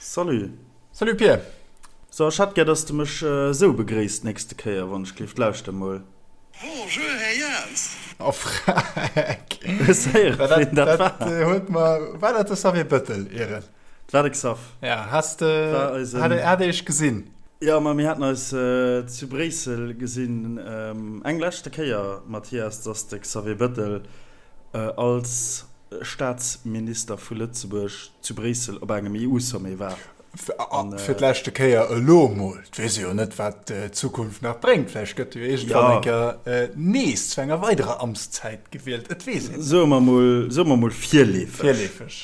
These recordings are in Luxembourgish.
Salut. Salut Pir. So, ech hätt gär, dass de mech esou begréisst d'nächste Kéier, wann ech gleeft. Lauschter mol. Bonjour Här Jans. Oh freck. Hues héieren, ween dat war? Dat huet mer, war dat de Xavier Bëttel, Ieren? Dat war de Xav. Ja, has de, hat hat Iech gesinn? Jo, ma mir haten eis zu Bréissel gesinn, eng leschte Kéier, Mathias, dass de Xavier Bëttel als Staatsminister vu Lëtzebuerg zu Bréissel op engem EU-Sommet war. Fir d'leschte Kéier elo emol. Et weess ee jo net, wat d'Zukunft nach bréngt. Vläicht gëtt e jo iergendwann eng Kéier nees zu enger weiderer Amtszäit gewielt. Et weess een net. Soe mer emol, soe mer emol virleefeg. Virleefeg.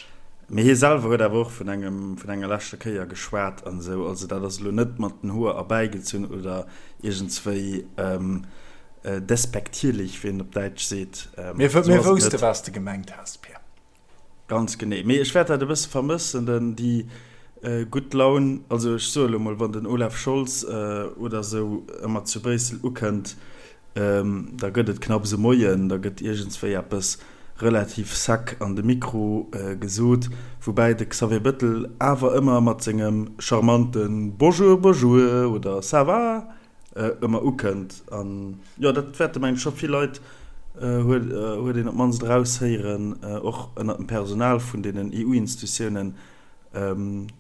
Mee hie selwer huet awer och vun engem, vun enger leschter Kéier geschwat an esou. Also dat ass elo net mat den Hoer erbäigezunn oder iergendswéi Despektierlich, wéi een op Däitsch seet. Mir wousste wat s de gemengt has, Pir. Ganz genee. Mee ech wäert dat e bësse vermëssen, denn déi gutt Laun, also ech soe lo mol, wann den Olaf Scholz oder esou ëmmer zu Bréissel ukënnt, da gëtt et knapps e Moien, da gëtt iergendswéi eppes relativ sec an de Mikro gesot, woubäi de Xavier Bëttel awer ëmmer mat sengem charmante Bonjour, bonjour oder Ça va? ëmmer ukënnt. An jo, dat wäerte mengen ech scho vill Leit, huet huet een op d'mannst eraushéieren, och ënnert dem Personal vun deenen EU-Institutiounen hunn,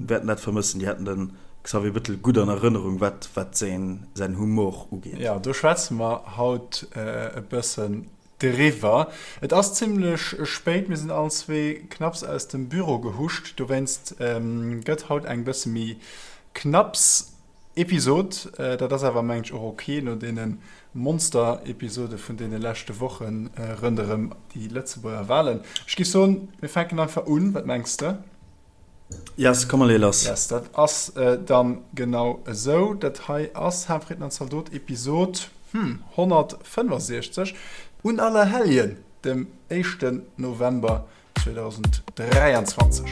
wäerten dat vermëssen. Déi hätten de Xavier Bettel gutt an Erënnerung, wat wat säin säin Humor ugeet. Jo, do schwätze mer haut e bëssen driwwer. Et ass zimmlech spéit, mir sinn allen zwee knapps aus dem Büro gehuscht, dowéinst gëtt haut eng bësse méi knapps Episod. Dat ass awer mengen ech och ok no deene Monster-Episode vun deene leschte Woche ronderëm déi Lëtzebuerger Walen. Ech géif soen, mir fänken einfach un. Wat mengs de? Yes, komm mer leeë lass. Yes, dat ass dann genau esou. Dat hei ass Haarfritten an Zaldot Episod, hm, 165 un Allerhelljen, dem éischten November 2023.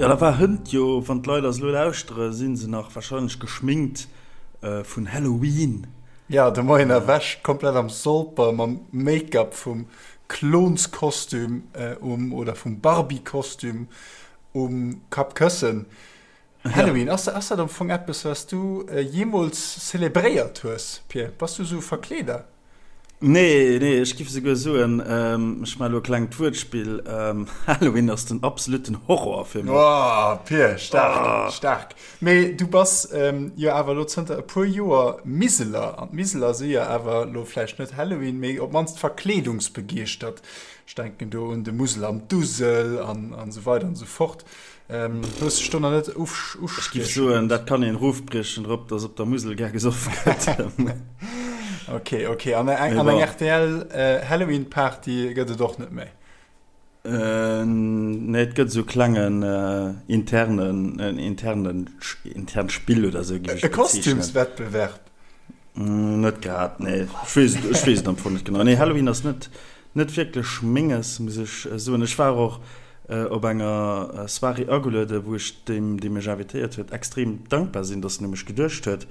Jo, da war hënt jo, wann d'Leit eis elo lauschtere, si se nach wahrscheinlech geschminkt vun Halloween. Jo, de Moien erwächt, komplett am Solper, mam Make-up vum Klonskostüm um oder vum Barbie-Kostüm um Kappkëssen. Halloween, ass ass dat am Fong eppes, wat s du jeemools zelebréiert hues, Pir? Bass du esou e Verkleeder? Nee, nee, ech giff esouguer soen, ech maache elo e klengt Wuertspill, Halloween ass den absoluten Horror fir mech. Oh, Pir, staark, staark. Mee du bass jo awer elo zënter e puer Joer Miseler, an d'Miseler si jo awer elo vläicht net Halloween, mee op d'mannst verkleedungsbegeeschtert. Ech denken do un de Musel an d'Usel an esou weider an esou fort. Hues dech do nach net Ech géif ustieche soen, dat kann een erofbriechen drop, dass op der Musel gär gesoff gëtt. Ok, ok. An eng rtl Halloween-Party gëtt et och net méi? Nee, et gëtt esou klengen internen, en internen, internt Spill oder esou géif ech et bezeechnen. E Kostümswettbewerb? Net grad, nee. Ech weess et, ech weess et am Fong net genau. Nee, Halloween ass net, net wierklech menges, muss ech soen. Ech war och op enger Soirée agelueden, wou ech deem, dee mech invitéiert huet, extrem dankbar sinn, dass en u mech geduecht huet,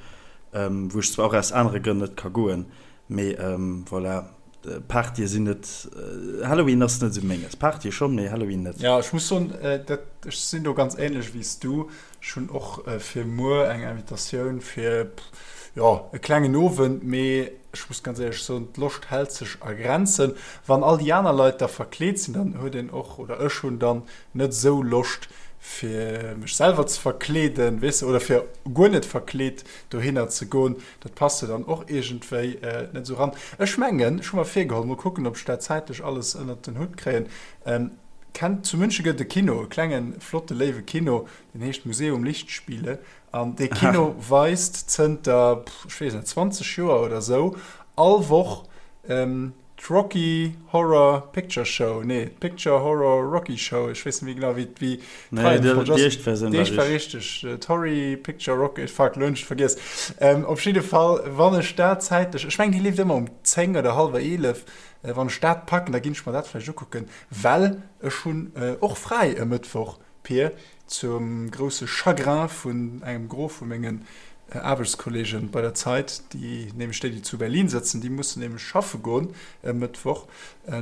wou ech zwar och aus anere Grënn net ka goen, mee voilà. Partye sinn net, Halloween ass net esou menges. Partye schonn, mee Halloween net. Jo, ech muss soen, dat, ech sinn do ganz ähnlech wéi s du. Ech hunn och fir muer eng Invitatioun fir, jo, e klengen Owend, mee ech muss ganz éierlech soen, d'Loscht hält sech a Grenzen. Wann all déi aner Leit da verkleet sinn, dann huet een och, oder ech hunn dann net esou Loscht fir mech selwer ze verkleeden, weess de, oder fir guer net verkleet dohinner ze goen. Dat passt jo dann och iergendwéi net esou ran. Ech mengen, ech hu mer virgeholl, mol kucken, ob ech dat zäitlech alles ënnert den Hutt kréien, kennt, zu München gëtt et e Kino, e klengen, flotte, léiwe Kino, deen heescht Museum Lichtspiele. An dee Kino weist zënter, ech weess net, 20 Joer oder esou all Woch D'Rocky Horror Picture Show, nee, d'Picture Horror Rocky Show, ech weess net méi genau, wéi wéi d'Reihenfolg ass. Déi éischt Versioun war richtig. Déi éischt war richtig. D'Horry Picture Rocky, fuck, elo hunn ech et vergiess. Op jidde Fall, wann ech dat zäitlech, ech mengen, déi leeft ëmmer um 10 oder hallwer 11, wann ech dat packen, da ginn ech mer dat vläicht ukucken, well ech hunn och fräi e Mëttwoch. Pir, zum grousse Chagrin vun engem Gros vu mengen Aarbechtskolleegen bei der Zeit, déi nämlech déi, déi zu Berlin sëtzen, déi mussen nämlech schaffe goen e Mëttwoch.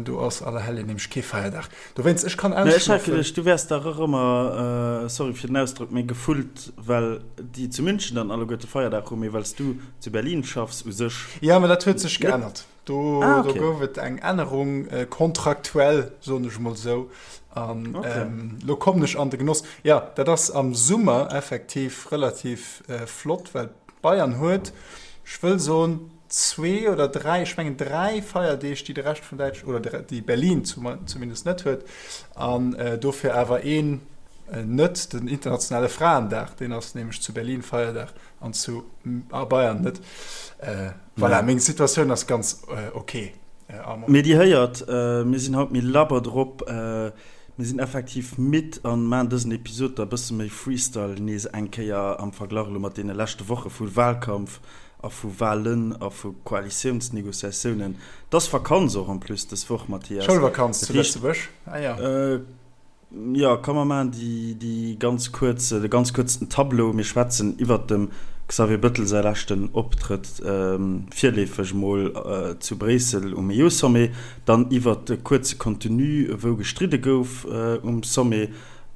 Do ass Allerhelljen nämlech kee Feierdag. Dowéinst, ech kann Mä ech hat geduecht, du wäers dach och ëmmer, sorry fir den Ausdrock, mee gefullt, well déi zu München dann alleguerte Feierdag hunn, mee well s du zu Berlin schaffs u sech. Jo, mä dat huet sech geännert. Do, ah, okay. do gouf et eng Ännerung äh, kontraktuell, soen ech mol sou. An okay. ähm, lo kommen ech an de Genoss. Ja, dat ass am Summer effektiv relativ äh, flott, well Bayern huet, ech wëll soen, zwee oder dräi, ech mengen dräi Feierdeeg, déi de Rescht vun Däitsch oder déi Berlin zumindest net huet. An äh, dofir awer een äh, net, den internationale Fraendag, deen ass nämlech zu Berlin Feierdag an zu a Bayern net. Äh, voilà, meng Situatioun ass ganz äh, okay. Äh, Mee Dir héiert, äh, mir sinn haut méi labber drop. Äh, mir sinn effektiv midd an maachen dësen Episod da bësse méi Freestyle nees eng Kéier am Verglach elo mat deene leschte Woche vu Wahlkampf a vu Wahlen a vu Koalitiounsnegociatiounen. 't ass Vakanz och en plus dës Woch, Mathias. Schoulvakanz zu Lëtzebuerg, ah ja. Jo, komm mer maachen déi, déi ganz kuerz, de ganz kuerzen Tableau. Mir schwätzen iwwert dem Xavier Bëttel säi leschten Optrëtt, virleefeg emol zu Bréissel um EU-Sommet, dann iwwert de kuerze Contenu, wou gestridde gouf um Sommet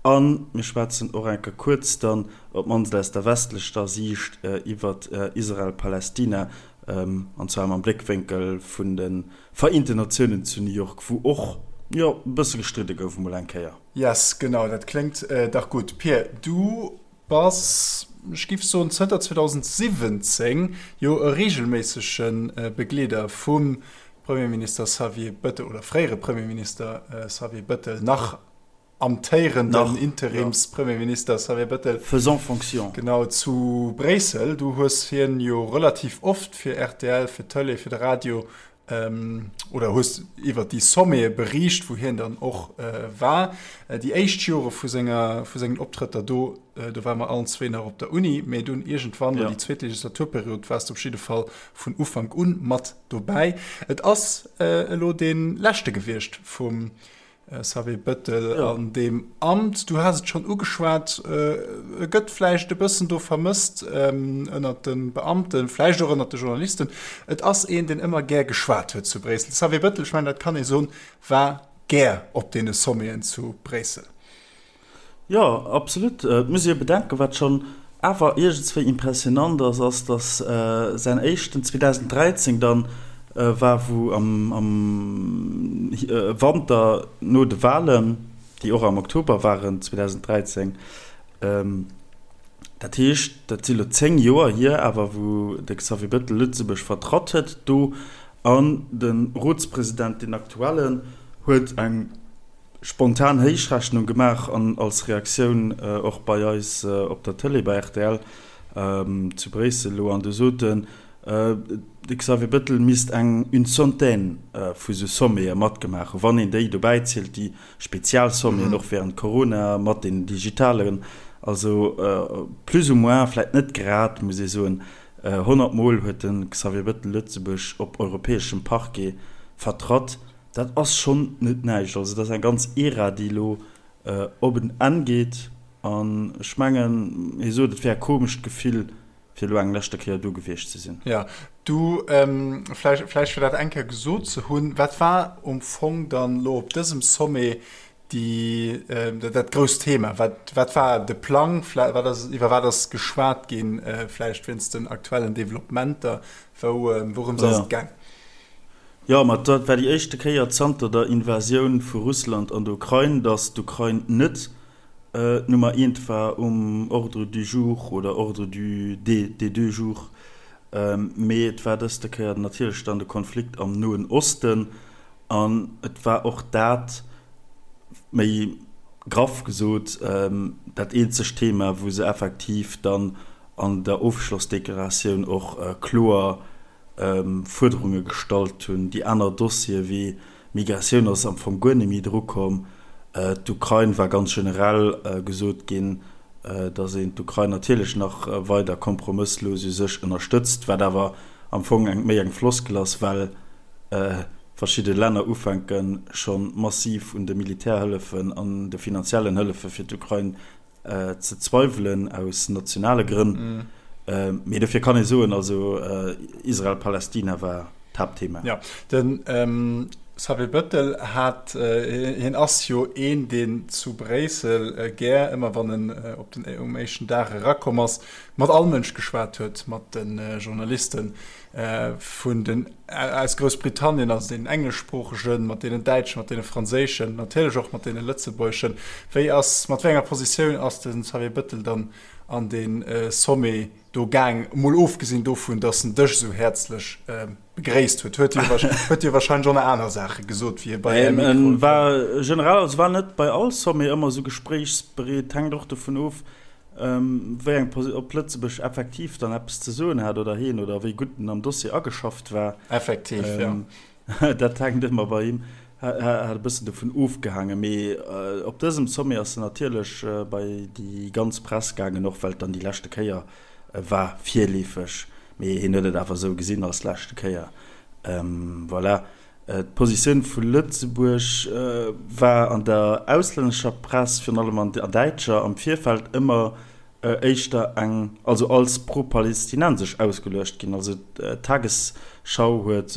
a mir schwätzen och eng Kéier kuerz dann, op d'mannst aus der westlechter Siicht, iwwert Israel-Palästina, an zwar mam Bléckwénkel vun de Vereenten Natiounen zu New York, wou och, jo, e bësse gestridde gouf emol eng Kéier. Yes, genau, dat kléngt dach gutt. Pir, du bass, ech giff soen, zënter 2017 jo e reegelméissege Begleeder vum Premierminister Xavier Bëttel, oder fréiere Premierminister Xavier Bëttel, nach amtéierenden Interimspremierminister Xavier Bëttel. Faisant fonction. Genau, zu Bréissel. Du hues hien jo relativ oft fir rtl, fir d'Tëlee, fir de Radio, oder hues iwwer déi Sommete beriicht, wou hien dann och war. Déi éischt Jore vu senger, vu sengen Optrëtter do, do ware mer allen zwee nach op der Uni, mee dunn iergendwann, déi zweet Legislaturperiod, waars de op jidde Fall vun Ufank un mat dobäi. Et ass elo dee leschte gewiescht vum Xavier Bettel an deem Amt. Du has et schonn ugeschwat, e gëtt vläicht e bëssen do vermësst ënnert de Beamten, vläicht och ënnert de Journalisten. Et ass een, deen ëmmer gär geschwat huet zu Bréissel. De Xavier Bettel, ech mengen, dat kann ee soen, war gär op deene Sommeten zu Bréissel. Jo, absolut. Et muss ee jo bedenken, wat schonn awer iergendswéi impressionant ass, ass, datt säin éischten 2013 dann war, wou am Wanter no de Wahlen, déi och am Oktober waren 2013, dat heescht, dat si lo 10 Joer hier awer, wou de Xavier Bettel Lëtzebuerg vertratt huet do an de Rotspresident, deen aktuellen, huet eng spontan Héichrechnung gemaach an als Reaktioun och bei eis op der Tëlee, bei rtl zu Bréissel elo, an do sot en, de Xavier Bettel misst eng une centaine vu sou Sommete matgemaach hunn, wann een déi dobäi zielt, déi spezial Sommeten och während Corona mat den digitalen, also plus ou moins, vläicht net grad, muss ee soen, 100 Mol huet de Xavier Bettel Lëtzebuerg op europäeschem Parquet vertratt. Dat ass schonn net näischt. Also dat ass eng ganz Ära, déi elo op en Enn geet. An ech mengen, hie sot, et wär e komescht Gefill, fir elo eng leschte Kéier do gewiescht ze sinn. Jo, du, vläicht, vläicht fir dat eng Kéier gesot ze hunn, Wat war um Fong dann elo op dësem Sommet déi, dat grousst Thema? Wat, wat war de Plang? Wat ass, iwwer wat ass geschwat ginn, vläicht wéinst den aktuellen Developpementer? Wou, wourëms ass et gaang? Jo, ma dat war déi éischte Kéier zanter der Invasioun vu Russland an der Ukrain, datt d'Ukrain net d'Nummer eent war um Ordre du jour oder Ordre du des deux jours, mee et war dëste Kéier natierlech dann de Konflikt am Noen Osten an et war och dat, méi graff gesot, dat eenzegt Thema, wou se effektiv dann an der Ofschlossdeklaratioun och kloer Fuerderunge gestallt hunn. Déi aner Dossiere wéi Migratioun ass am Fong guer net méi drukomm. D'Ukrain war ganz generell gesot ginn, datt een d'Ukrain natierlech nach weider kompromësslos u sech ënnerstëtzt, wat awer am Fong eng méi eng Floskel ass, well. verschidde Länner ufänke scho massiv un de Militärhëllefen an de finanziellen Hëllefe fir d'Ukrain ze zweiwelen, aus nationale Grënn. Mee dofir kann ee soen, also Israel-Palästina war d'Haaptthema. Jo, de Xavier Bettel hat, hien ass jo een, deen zu Bréissel gär, ëmmer wann en op den, um éischten Dag erakomm ass, mat all Mënsch geschwat huet, mat de Journalisten vun den, aus Groussbritannien, also deenen engleschsproochegen, mat deenen däitschen, mat deene franséischen, natierlech och mat deene lëtzebuergeschen. Wéi ass, mat wéi enger Positioun ass de Xavier Bettel dann an dee Sommet do gaang, emol ofgesinn dovun, datt en dech esou häerzlech begréisst huet? Huet huet hie wahrscheinlech och nach aner Saache gesot, wéi hie bei Är Mikroe koum. War generell, also war net bei all Sommet ëmmer esou gespréichsbereet, hänkt och dovun of, wéi eng Posi-, ob Lëtzebuerg effektiv dann eppes ze soen hat oder heen oder wéi gutt en am Dossier ageschafft war. Effektiv, jo. Dat hänkt ëmmer bei him, hat e bëssen dovun ofgehaangen. Mee op dësem Sommet ass en natierlech bei déi ganz Press gaangen, och well et dann déi leschte Kéier war, virleefeg. Mee hien huet et awer esou gesinn als leschte Kéier. Voilà. D'Positioun vu Lëtzebuerg war an der auslännescher Press, virun allem an der däitscher, am Virfeld ëmmer éischter eng, also als pro-palestinensesch ausgeluecht ginn. Also d'Tagesschau huet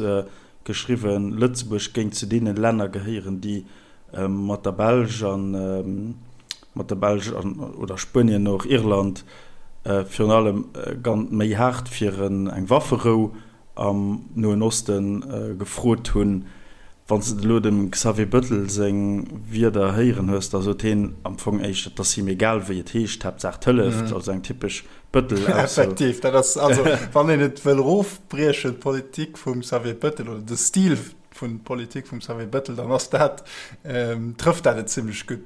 geschriwwen, Lëtzebuerg géing zu deene Länner gehéieren, déi mat der Belsch an mat der Belsch an oder Spuenien och Irland virun allem méi haart fir eng Wafferou am Noen Oste gefrot hunn. Wann s de elo dem Xavier Bettel seng Wierder héieren hues, da sot heen am Fong éischter, et ass him egal wéi et heescht, Haaptsaach et hëlleft, also eng typesch Bettel-Ausso. Effektiv, dat ass also, wann een et wëll erofbriechen, d'Politik vum Xavier Bettel oder de Stil vun Politik vum Xavier Bettel, dann ass dat, trëfft dat et zimlech gutt.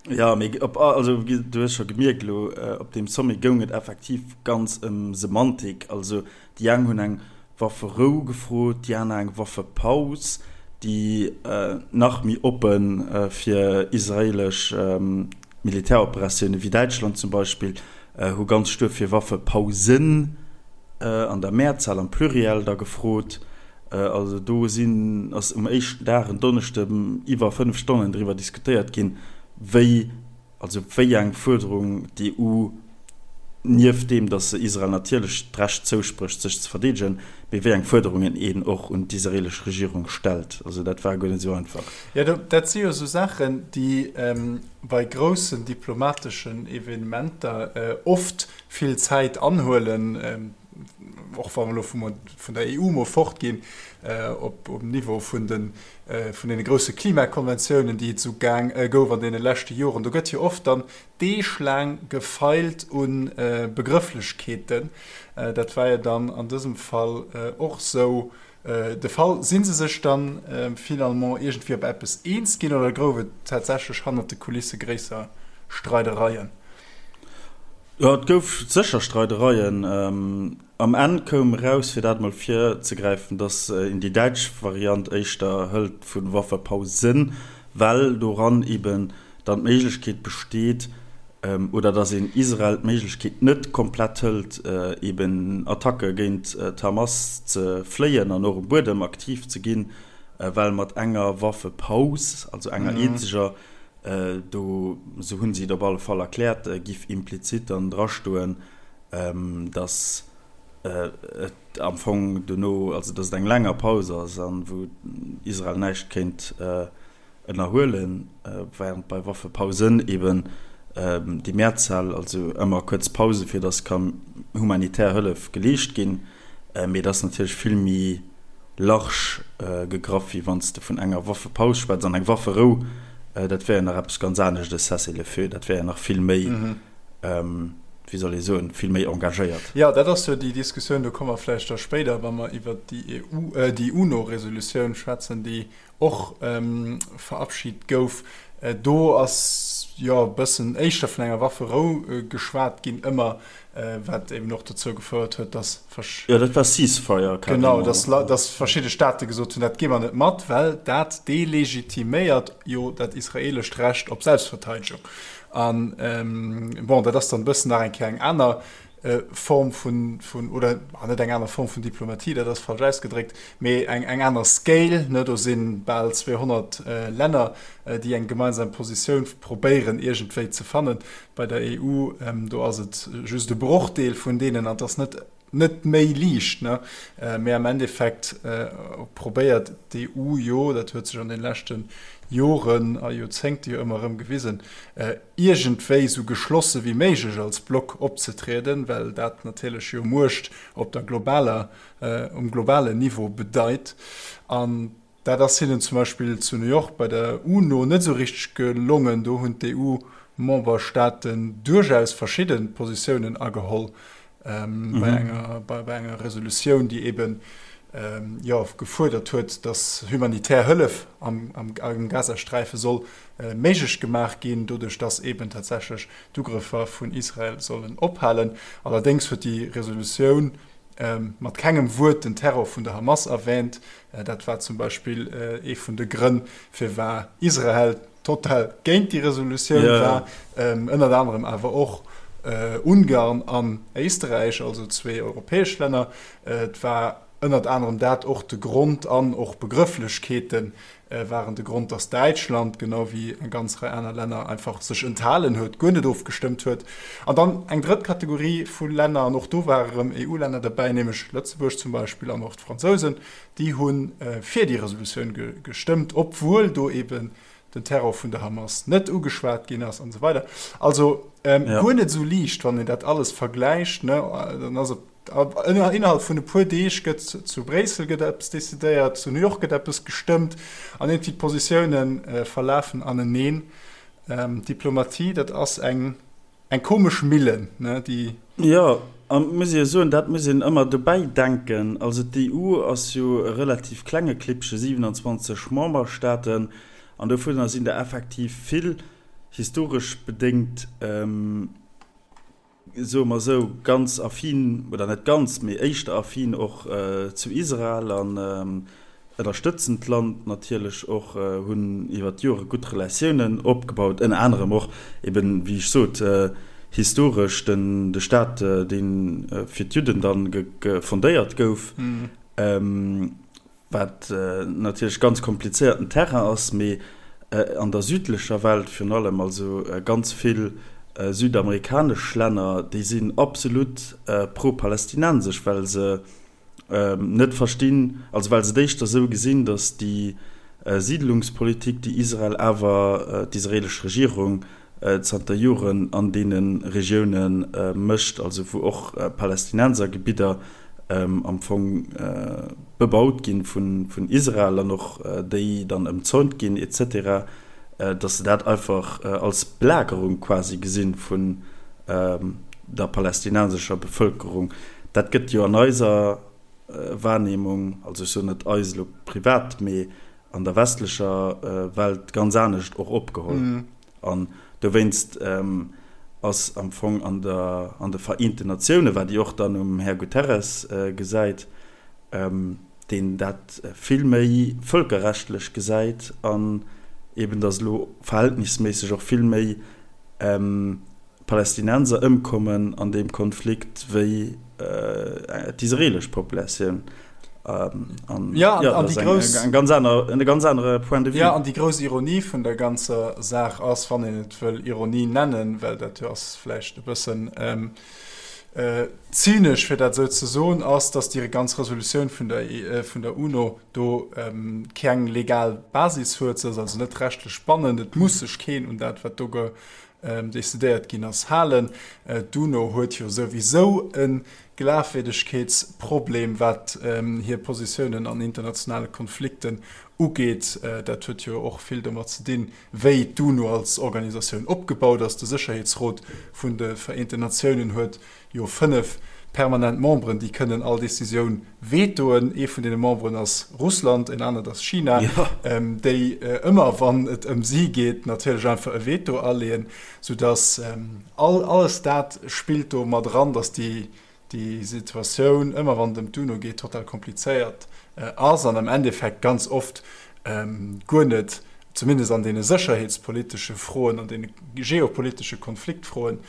Jo, mee op, also du hues scho gemierkt elo, op deem Sommet goung et effektiv ganz ëm Semantik. Also Déi eng hunn eng Wafferou gefrot, déi aner eng Waffepaus, déi nach méi oppe fir israeelesch Militäroperatioune wéi Däitschland zum Beispill, hu ganz stuer fir Waffepausen an der Mehrzahl, am Pluriel da gefrot. Also do sinn, ass um éischten Dag, en Donneschden, iwwer 5 Stonnen driwwer diskutéiert ginn, wéi Also wéi eng Fuerderung d'EU, nieft deem, datt se Israel natierlech d'Recht zousprécht, sech ze verdeedegen, mee wéi eng Fuerderungen een och un d'israeelesch Regierung stellt. Also dat war guer net esou einfach. Jo, dat si jo esou Saachen, déi bei groussen diplomateschen Evenementer oft vill Zäit anhuelen, och wa mer elo vun der EU mol fortginn, op um Niveau vun de vun deene grousse Klimakonventiounen, déi et esou gaang gouf an deene leschte Joren. Do gëtt jo oft dann deeglaang gefeilt u Begrëfflechkeeten. Dat war jo dann an dësem Fall och esou de Fall. Si se sech dann finalement iergendwéi op eppes eens ginn oder gouf et tatsächlech hannert de Kulisse gréisser Streidereien? Jo, et gouf sécher Streidereien. Am Enn koum eraus, fir dat emol virzegräifen, datt een déi däitsch Variant éischter hëlt vu Waffepausen, well doran eben dann d'Méiglechkeet besteet, oder datt een Israel d'Méiglechkeet net komplett hëlt, eben Attacke géint d'Hamas ze fléien an och um Buedem aktiv ze ginn, well mat enger Waffepaus, also enger eenzeger, Do, esou hunn si et op alle Fall erkläert, giff implizit dann drastoen, datt et am Fong dono, also datt et eng länger Paus ass an wou Israel näischt kéint ënnerhuelen, während bei Waffepausen eben déi Mehrzahl, also ëmmer kuerz Pause fir datt ka humanitär Hëllef geleescht ginn. Mee et ass natierlech vill méi large gegraff, wéi wann s de vun enger Waffepaus schwätz. An eng Wafferou, dat wär jo nach eppes ganz anescht, e Cessez-le-feu, dat wär jo nach vill méi, wéi soll ee soen, vill méi engagéiert. Jo, dat ass jo déi Diskussioun, do komme mer vläicht da spéider, wa mer iwwert déi EU, déi UNO-Resolutioun schwätzen, déi och verabschit gouf. Do ass jo e bëssen éischter vun enger Wafferou geschwat ginn ëmmer, wat eben och dozou gefouert huet, dass versch. Jo, dat war Ceasefire carrément. Genau, dass, dass verschidde Staate gesot hunn, dat gi mer net mat, well dat delegitiméiert jo dat israeelescht Recht op Selbstverteidegung. An bon, dat ass dann e bëssen nach eng Kéier eng aner. Form vun, vun, oder net eng aner Form vun Diplomatie, dat ass falsch ausgedréckt, mee eng, eng aner Scale, ne? Do si bal 200 Länner, déi eng gemeinsam Positioun probéieren iergendwéi ze fannen. Bei der EU, do ass et just e Brochdeel vun deenen an et ass net, net méi liicht, ne? Mee am Endeffekt probéiert d'EU jo, dat huet sech an de leschte Joren a Joerzéngte jo ëmmer erëm gewisen, iergendwéi esou geschlosse wéi méiglech als Block opzetrieden, well dat natierlech jo Muecht op der globaler, um globalen Niveau bedeit. An Dat ass hinnen zum Beispill zu New York bei der UNO net esou richteg gelongen. Do hunn d'EU-Memberstaaten duerchaus verschidde Positiounen ageholl bei enger, bei enger Resolutioun, déi eeben, jo, gefuerdert huet, datt humanitär Hëllef am, am Gazasträife soll méiglech gemaach ginn, doduerch datt eeben tatsächlech d'Ugrëffer vun Israel sollen ophalen. Allerdéngs huet déi Resolutioun mat kengem Wuert den Terror vun der Hamas erwähnt. Dat war zum Beispill ee vun de Grënn, firwar Israel total géint déi Resolutioun war. Ënnert anerem awer och Ungarn an Éisterräich, also zwee europäesch Länner. Et war ënnert anerem dat och de Grond an och Begrëfflechkeeten, waren de Grond, datt Däitschland, genau wéi eng ganz Rei aner Länner, einfach sech enthalen huet, guer net ofgestëmmt huet. An dann eng drëtt Kategorie vu Länner, an och do ware rëm EU-Länner derbäi, nämlech Lëtzebuerg zum Beispill an och d'Fransousen, déi hu fir déi Resolutioun gestëmmt, obwuel do eeben den Terror vun der Hamas net ugeschwat ginn ass an esou weider. Also guer net esou liicht, wann een dat alles vergläicht, ne, dann ass et Innerhalb vun e puer Deeg gëtt zu Bréissel gëtt eppes decidéiert, zu New York gëtt eppes gestëmmt an iergendwéi d'Positioune verlafen aneneen. Diplomatie, dat ass eng eng komesch Millen, ne, déi. Jo, an et muss ee jo soen, dat muss een ëmmer dobäi denken, also d'EU ass jo e relativ klenge Klippche, 27 Memberstaaten, an dovunner sinn der effektiv vill, historesch bedéngt, soe mer esou, ganz affin, oder net ganz, mee éischter affin och zu Israel an ënnerstëtzen d'Land natierlech och, hunn iwwer d'Jore gutt Relatiounen opgebaut, ënner anerem och eben, wéi ech sot, historesch den de Staat, dee fir d'Judden dann fondéiert gouf. Wat natierlech ganz komplizéierten Terrain ass, mee an der südlecher Welt virun allem, also ganz vill südamerikanesch Länner, déi sinn absolut pro-palästinensesch, well se net verstinn, also well se et éischter esou gesinn, datt déi Siidlungspolitik, déi Israel awer, d'israelesch Regierung zanter Joren an deene Regioune mécht, also wou och Palästinensergebidder am Fong bebaut gi vun Israel an och déi dann ëmzäunt ginn et cetera, datt se dat einfach als Belagerung quasi gesinn vun der palästinensescher Bevëlkerung. Dat gëtt jo an eiser Wahrnehmung, also ech soen net eis elo privat, mee an der westlecher Welt ganz anescht och opgeholl. An dowéinst ass am Fong an der, an de Vereenten Natiounen, wat Dir och dann um Här Guterres gesäit, deen dat vill méi vëlkerrechtlech gesäit an eben, datt elo verhältnisméisseg och vill méi Palästinenser ëmkommen an deem Konflikt wéi d'israelesch Populatioun. An ja, ja, an déi grouss, eng ganz aner, e ganz anere Point de vue. Ja, an déi grouss Ironie vun der ganzer Saach ass, wann een et wëll Ironie nennen, well dat jo ass vläicht e bëssen ähm, äh, zynesch fir dat esou ze soen, ass, datt déi ganz Resolutioun vun der, äh, vun der UNO do ähm, keng legal Basis huet, se ass also net rechtlech bannend, et muss sech keen un dat, wat do ge decidéiert ginn ass, halen. D'UNO huet jo souwisou e Glafwierdegkeetsproblem, wat hir Positiounen an internationale Konflikten ugeet. Dat huet jo och vill domat ze dinn, wéi d'UNO als Organisatioun opgebaut ass. De Sécherheetsrot vun de Vereenten Natiounen huet jo 5 permanent Memberen, déi kënnen all Decisioun vetoen. Ee vun deene Memberen ass Russland, en anert ass China, déi ëmmer, wann et ëm si geet, natierlech einfach e Veto aleeën, soudass all alles dat spillt do mat eran, dass déi déi Situatioun, ëmmer wann et ëm d'UNO geet, total komplizéiert ass an am Endeffekt ganz oft guer net, zumindest an deene sécherheetspolitesche Froen, an deene geopolitesche Konfliktfroen.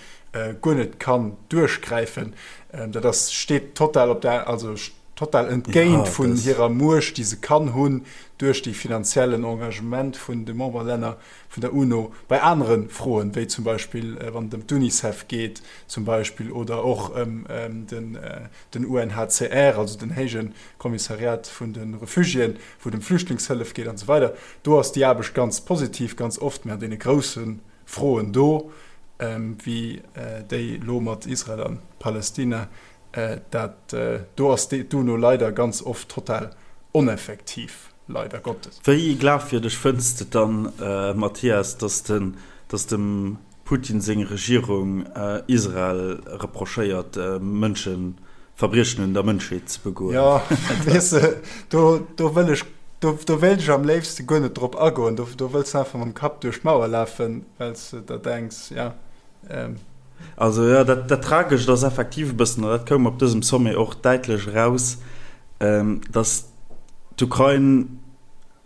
guer net kann duerchgräifen. Dat ass, steet total op der, also total entgéint vun hirer Muecht, déi se kann hunn duerch dee finanziellen Engagement vun de Memberlänner vun der UNO bei anere Froen, wéi zum Beispill wann et ëm d'UNICEF geet zum Beispill oder och ëm den UNHCR, also den héije Kommissariat vun de Refugiéen, wou et ëm Flüchtlingshëllef geet an esou weider. Do ass déi Aarbecht ganz positiv ganz oft, mä an deene grousse Froen do, wéi déi elo mat Israel a Palästina, dat do ass d'UNO leider ganz oft total oneffektiv, leider Gottes. Wéi glafwierdeg fënns de et dann, Mathias, datt dem Putin seng Regierung Israel reprochéiert, Mënschen, Verbriechen un der Mënschheet ze begoen? Jo, weess de, do, do wëll ech, do, do wéilt ech am léifste guer net drop agoen. Do, do wëlls de einfach mam Kapp duerch d'Mauer lafen, well s de der denks, ja, ähm. Also jo, dat, dat Tragescht ass effektiv e bëssen, an dat koum op dësem Sommet och däitlech eraus, datt d'Ukrain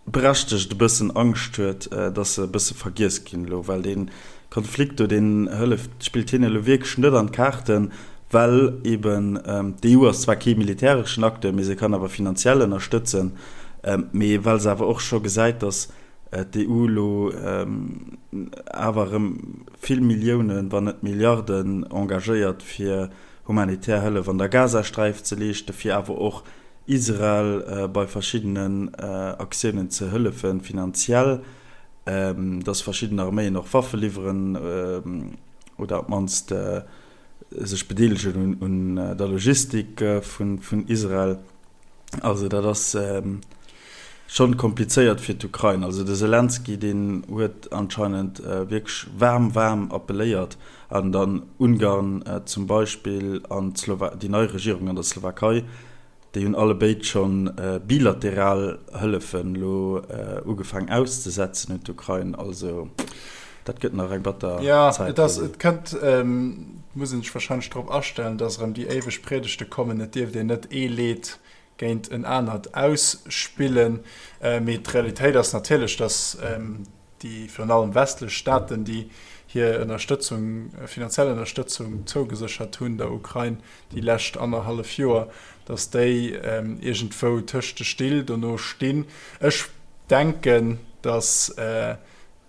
berechtegt e bëssen Angscht huet, dass se e bësse vergiess ginn elo, well dee Konflikt do, deen hëlleft, spillt hinne elo wierklech net an d'Kaarten, well eben d'EU ass zwar kee militäreschen Acteur, mee se kann awer finanziell ënnerstëtzen, mee well se awer och scho gesäit, dass d'EU elo awer erëm vill Milliounen, wann net Milliarden engagéiert, fir humanitär Hëllef an der Gazasträif ze leeschten, fir awer och Israel bei verschiddenen Aktiounen ze hëllefen, finanziell, dass verschidden Arméien och Waffe liwweren oder op d'mannst sech bedeelegen un der Logistik vun Israel. Also dat ass schonn komplizéiert fir d'Ukrain. Also de Selenskyj, deen huet anscheinend wierklech waarm, waarm appelléiert an dann Ungarn zum Beispill an déi nei Regierung an der Slowakei, déi hunn allebéid schonn bilateral Hëllefen elo ugefaang auszesetzen un d'Ukrain. Also dat gëtt nach eng batter Zäit fir si. Jo, et kënnt, et muss een sech warscheinlech drop astellen, datt erëm déi éiweg Priedegte kommen, et dierft een net ee Leed géint en anert ausspillen. Mee d'Realitéit ass natierlech, datt déi virun allem westlech Staaten, déi hir Ënnerstëtzung, finanziell Ënnerstëtzung zougeséchert hunn der Ukrain déi lescht annerhallef Joer, datt déi iergendwou tëscht de Still dono stinn. Ech denken, datt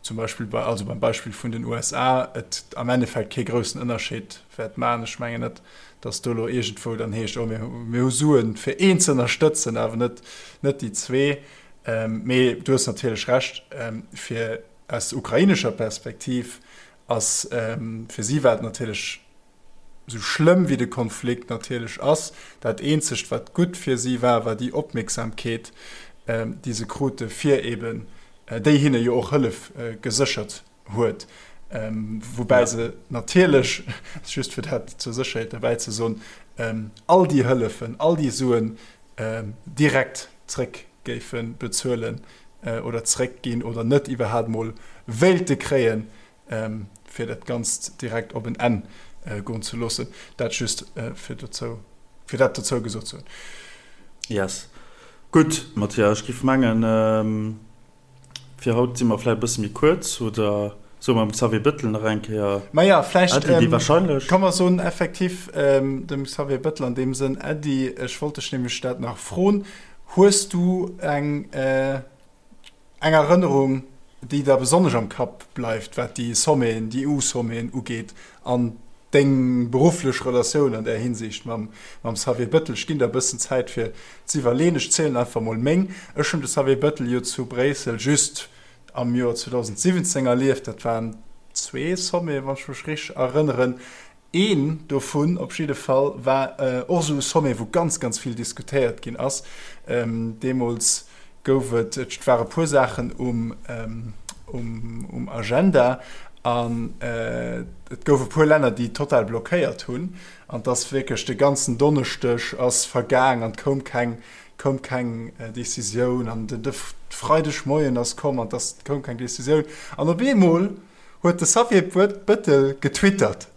zum Beispill bei, also beim Beispill vun den USA, et am Endeffekt kee groussen Ënnerscheed wäert maachen. Ech mengen net, datt do elo iergendwou dann heescht, oh mir hu Suen fir een ze ënnerstëtzen, awer net net déi zwee. Mee du hues natierlech Recht, fir aus ukrainescher Perspektiv ass, fir si war et natierlech, esou schlëmm wéi de Konflikt natierlech ass, dat eenzegt wat gutt fir si war, war déi Opmierksamkeet, déi se krute fir eben, déi hinne jo och Hëllef geséchert huet, woubäi se natierlech, just fir dat zur Sécherheet derbäi ze soen, all déi Hëllefen, all déi Suen direkt zréck géife bezuelen oder zréckginn oder net iwwerhaapt mol wéilte kréien, fir dat Ganzt direkt op en Enn goen ze loossen. Dat just fir dozou, fir dat dozou gesot ze hunn. Yes. Gutt, Mathias, ech géif mengen, Fir haut si mer vläicht e bësse méi kuerz, oder soe mer dem Xavier Bettel nach eng Kéier Maja, vläicht Äddi, déi wahrscheinlech. Komm mer soen effektiv dem Xavier Bettel an deem Sënn Äddi. Ech wollt dech nämlech dat nach froen. Hues du eng eng Erënnerung, déi der besonnesch am Kapp bleift, wat déi Sommeten, déi EU-Sommeten ugeet an deng berufflech Relatioun an där Hinsicht mam Xavier Bettel? Ech ginn der e bëssen Zäit fir z'iwwerleeën. Ech zielen einfach mol meng. Ech hunn de Xavier Bettel jo zu Bréissel just am Joer 2017 erlieft. Dat waren zwee Sommeten, wann ech mech richteg erënneren. Een dovun op jidde Fall war och esou e Sommet, wou ganz, ganz vill diskutéiert ginn ass. Deemools gouf et, et ware puer Saachen um, um, um Agenda an et gouf e puer Länner, déi total blockéiert hunn. An et ass wierklech de ganzen Donneschdeg ass vergaang an et koum keng, koum keng Decisioun. An de, de Freidegmoien ass komm an et ass, koum keng Decisioun. An op eemol huet de Xavier Bettel getwittert.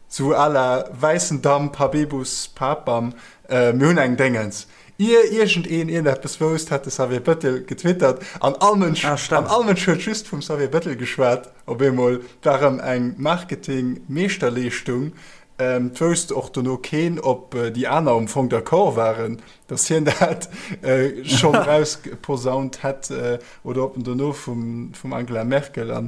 Sou à la wäissen Damp, Habebus Papam, mir hunn eng Déngens. Ier iergendeen iergendeppes wousst, hat de Xavier Bettel getwittert an all Mënsch, ah, an all Mënsch huet just vum Xavier Bettel geschwat. Op eemol war erëm eng Marketing-Meeschterleeschtung. Et wousst och dono keen, ob déi aner am Fong d'accord waren, datt hien dat schonn erausposaunt hätt oder ob en dono vum Angela Merkel a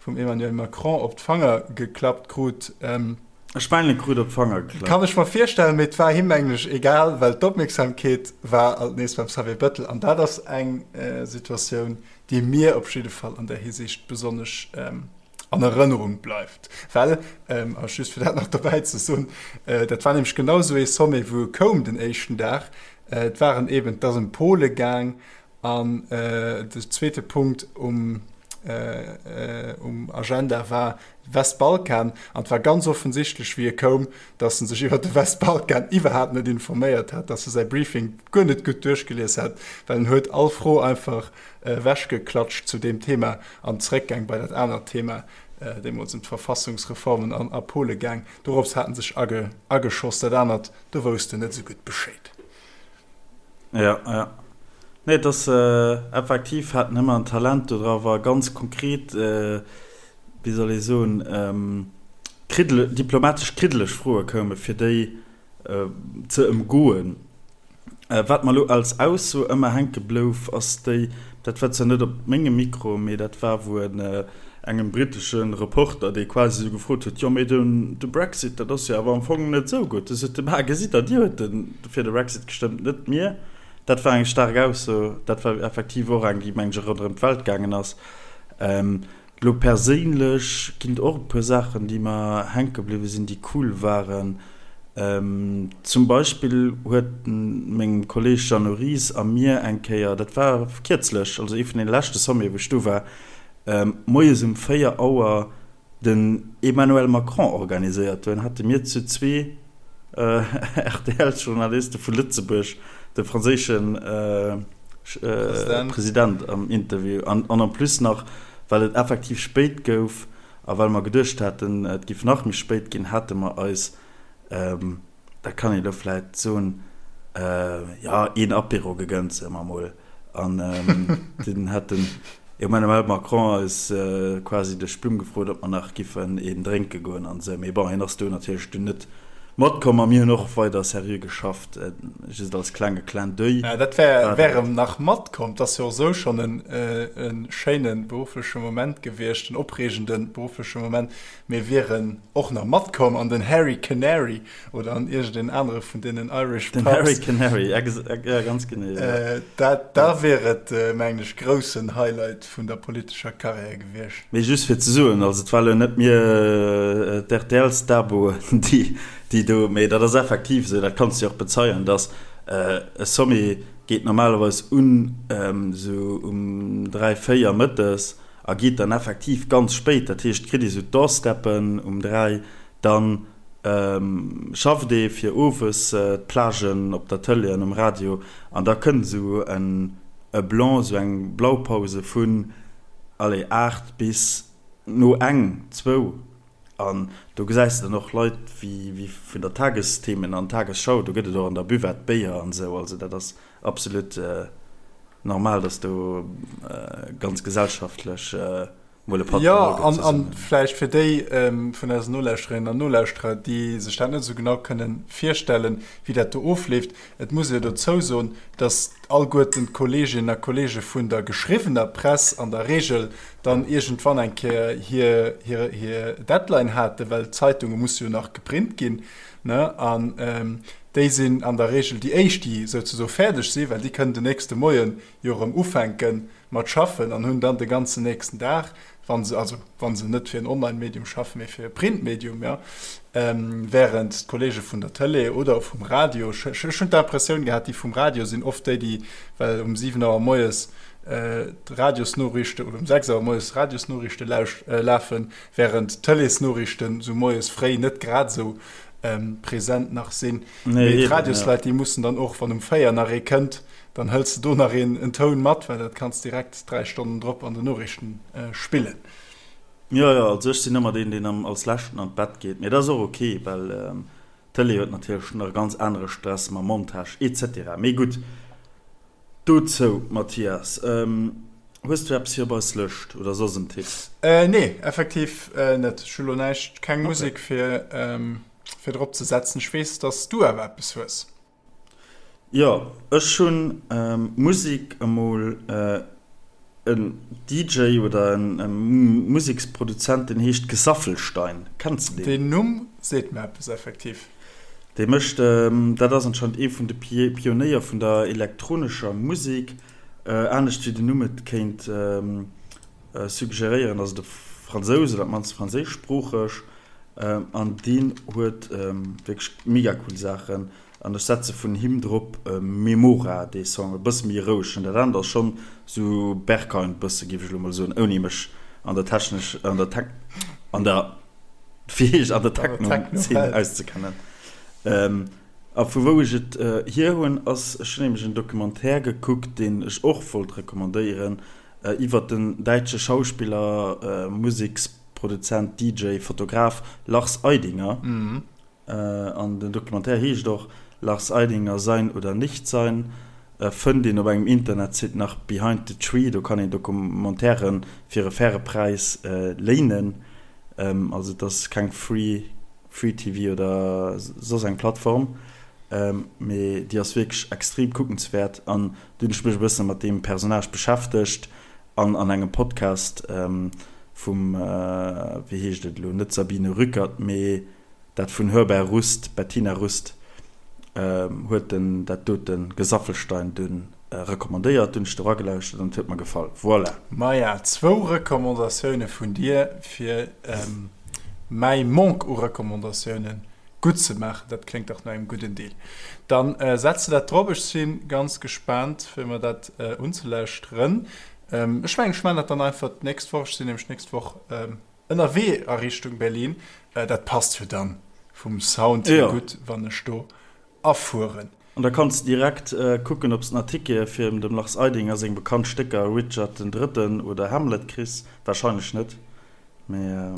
vum Emmanuel Macron op d'Fanger geklappt krut. Ech mengen, e krut op d'Fanger geklappt. Kann ech mer virstellen, mee et war him mengen ech egal, well d'Opmierksamkeet war alt nees beim Xavier Bettel an dat ass eng Situatioun, déi mir op jidde Fall an där Hisiicht besonnesch an Erënnerung bleift. Well, a just fir dat nach dobäi ze soen, dat war nämlech genau esou ee Sommet, wou e koum den éischten Dag, et waren eben, et ass ëm Pole gaang An de zweete Punkt um Agenda war Westbalkan. An et war ganz offensichtlech, wéi e koum, datt en sech iwwer de Westbalkan iwwerhaapt net informéiert hat, datt e säi Briefing guer net gutt duerchgelies hat, well en huet all Fro einfach ewechgeklatscht zu deem Thema an zeréckgaang bei dat anert Thema, deemools ëm d'Verfassungsreformen a Pole gaang. Dorops hat en sech ageschoss. Dat anert, do wousst en net esou gutt Bescheed. Ja, ja. Nee, et ass effektiv, hat en ëmmer en Talent do dra, war ganz konkret, wéi soll ee soen, kriddele, diplomatesch kriddeleg Froe koume fir déi ze ëmgoen. Wat mer elo als Ausso ëmmer hänke blouf, ass déi, dat war zwar net op mengem Mikro, mee dat war wou en engem britesche Reporter, dee quasi esou gefrot huet, jo mee de Brexit, dat ass jo awer am Fong net esou gutt. Du sot de, Ma gesitt Der, Dir huet fir de Brexit gestëmmt, net mir. Dat war eng staark Ausso. Dat war effektiv och eng, déi, mengen ech, ronderëm d'Welt gaangen ass. Elo perséinlech ginn et och e puer Saachen, déi mer hänke bliwwe sinn, déi cool waren. Zum Beispill huet mengem Kolleeg Jeannot Ries a mir eng Kéier, dat war kierzlech, also ee vun deene leschte Sommete wou ech do war, moies um 4 Auer den Emmanuel Macron organiséiert. Dunn hate mir zu zwee RTL-Journaliste vu Lëtzebuerg de franséische President am Interview. An en plus nach, well et effektiv spéit gouf a well mer geduecht haten, et géif nach méi spéit ginn, hate mer eis Dat kann een elo vläit soen, jo, een Apéro gegënnt, soe mer emol. An dunn hat den Emmanuel Macron eis quasi duerch d'Blumm gefrot, ob mer nach giffen een drénke goen an esou. Mee bon, hien ass do natierlech dunn net matkomm a mir hunn och weider seriö geschafft, just als klenge Clin d'oeil. Ja, dat wär, wär em nach matkomm. 't ass jo och esou schonn e schéine beruffleche Moment gewiescht, en opreegende beruffleche Moment. Mir wieren och nach matkomm an den Hairy Canary oder an iergendeen anere vun deenen Irish Pubs. Den Hairy Canary, ja, ganz genee. Ja. Dat, da wier et, mengen ech, groussen Highlight vun der politescher Karriär gewiescht. Mee just fir ze soen, also et war elo net mir, d'RTL-Staboen, déi, déi do, mee dat ass effektiv esou, dat kanns du jo och bezeien, dass e Sommet geet normalerweis un esou um 3, 4 mëttes A geet dann effektiv ganz spéit, dat heescht, kritt ee sou d'Doorsteppen um 3, dann schafft ee fir owes d'Plagen op der Tëlee an um Radio an da kënnt esou en e Blanc, esou eng Blaupause vun, allez, 8 bis no eng, zwou. An do gesäis de dann och Leit wéi vun der Tagesthemen an Tagesschau, do gëtt et och an der Buvette Béier an esou, also dat ass absolut normal, dass do ganz gesellschaftlech mol e Patt Jo, geholl gëtt an, an zesummen. vläicht fir déi vun eisen Nolauschterinnen an Nolauschterer, déi sech dat net esou genau kënnen virstellen, wéi dat do ofleeft, Et muss ee jo dozou soen, dass alleguerten d'Kolleeginnen a Kolleege vun der geschriwwener Press an der Regel dann iergendwann eng Kéier hir, hir, hir Deadline haten, well d'Zeitunge musse jo nach geprint ginn, ne? An déi sinn an der Regel déi éischt, déi souzesoe fäerdeg sinn, well déi kënnen den nächste Moie jo erëm ufänke mat schaffen an hunn dann de ganzen nächsten Dag, wa se, also wa se net fir en Online-Medium schaffen, mee fir e Print-Medium, jo, während d'Kollege vun der Tëlee oder vum Radio, ech hunn d'Impressioun gehat, déi vum Radio sinn oft déi, déi, well um 7 Auer moies d'Radiosnoriichte oder um 6 Auer moies d'Radiosnoriichte lafen, während d'Tëleesnoriichten esou moies fréi net grad esou present nach sinn. Mee d'Radiosleit, déi mussen dann och, wann um 4 nach ee kënnt, Dann hëls de do nach een en Toun mat, well dat kanns direkt 3 Stonnen drop an den Noriichten spillen. Jo, jo, also ech sinn ëmmer deen, deen am als leschten an d'Bett geet, mee dat ass och ok, well. D'Tëlee huet natierlech nach e ganz anere Stress mam Montage etc. Mee gutt, dozou, Mathias, hues du eppes fir op eis Lëscht oder soss en Tipp? Nee, effektiv net. Ech hu lo näischt, keng Musek fir fir drop ze setzen. Ech weess, dass du awer eppes hues. Jo, ech hunn Musek, emol en DJ oder en Museksproduzent, deen heescht Gesaffelstein. Kenns de deen? Deen Numm seet mer eppes, effektiv. Dee mécht, dat ass anscheinend ee vun de Pionéier vun der elektronescher Musek. Anescht wéi den Numm et kéint suggeréieren, ass et e Fransous oder op d'mannst franséischsproocheg. An deen huet wierklech mega cool Saachen. An ech setze vun him drop Memora, dee Song, e bësse méi roueg. Dat anert ass schonn sou Berghain bësse, géif ech elo mol soen, ouni mech an der technesch, an der Tech, an der, wéi heescht, an der Techno-Zeen auszekennen. A vu wou ech et hier hunn, ass, ech hunn nämlech en Documentaire gekuckt, deen ech och wollt recommandéieren, iwwert den däitsche Schauspiller, Museksproduzent, DJ, Fotograf Lars Eidinger. An den Documentaire heescht och Lars Eidinger, Sein oder Nichtsein. Fënnt een op engem Internetsite nach Behind the Tree, do kann een Documentairen fir e faire Präis léinen. Also et ass keng Free Free TV oder soss eng Plattform, mee déi ass wierklech extrem kuckenswäert. An du hunn ech mech e bësse mat deem Personnage beschäftegt an an engem Podcast vum, wéi heescht et elo, net Sabine Rückert, mee Dat vun Hörbar Rust, Bettina Rust, huet den dat dote Gesaffelstein dunn recommandéiert. Dunn ech do ragelauschtert an et huet mer gefall. Voilà! Maja, zwou Recommandatioune vun dir fir mäi Manque u Recommandatioune gutt ze maachen. Dat kléngt dach no engem gudden Deal. Dann setz de dat drop. Ech si ganz gespaant fir mer dat unzelauschteren. Ech mengen ech maachen dat dann einfach d'nächst Woch. Ech sinn nämlech d'nächst Woch Ënnerwee a Richtung Berlin, dat passt jo dann vum Sound hier gutt, wann ech do afueren. An da kanns de direkt kucken, ob s de nach Tickete fir dem Lars Eidinger seng bekannt Stécker Richard den Drëtten oder Hamlet kriss. Warscheinlech net, mee.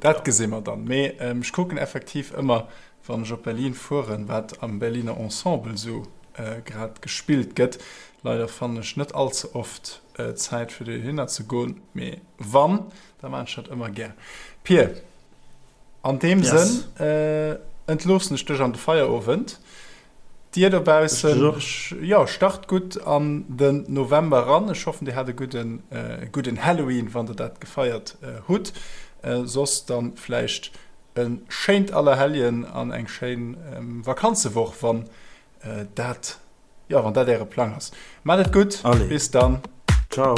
Dat gesi mer dann. Mee ech kucken effektiv ëmmer, wann ech op Berlin fueren, wat am Berliner Ensemble sou grad gespillt gëtt. Leider fannen ech net all ze oft Zäit fir dohinner ze goen, mee wann, da maan ech dat ëmmer gär. Pir, an deem yes. Sënn äh, entloossen ech dech an de Feierowend. Dir dobaussen, jo, start gutt an den November ran. Ech hoffen, dir hat e gudden, äh, gudden Halloween, wann der dat gefeiert äh, hutt. Äh, soss dann vläicht e schéint Allerhelljen an eng schéin ähm, Vakanzewoch, wann äh, dat Jo, wann dat äre Plang ass. Maat et gutt, bis dann. Ciao.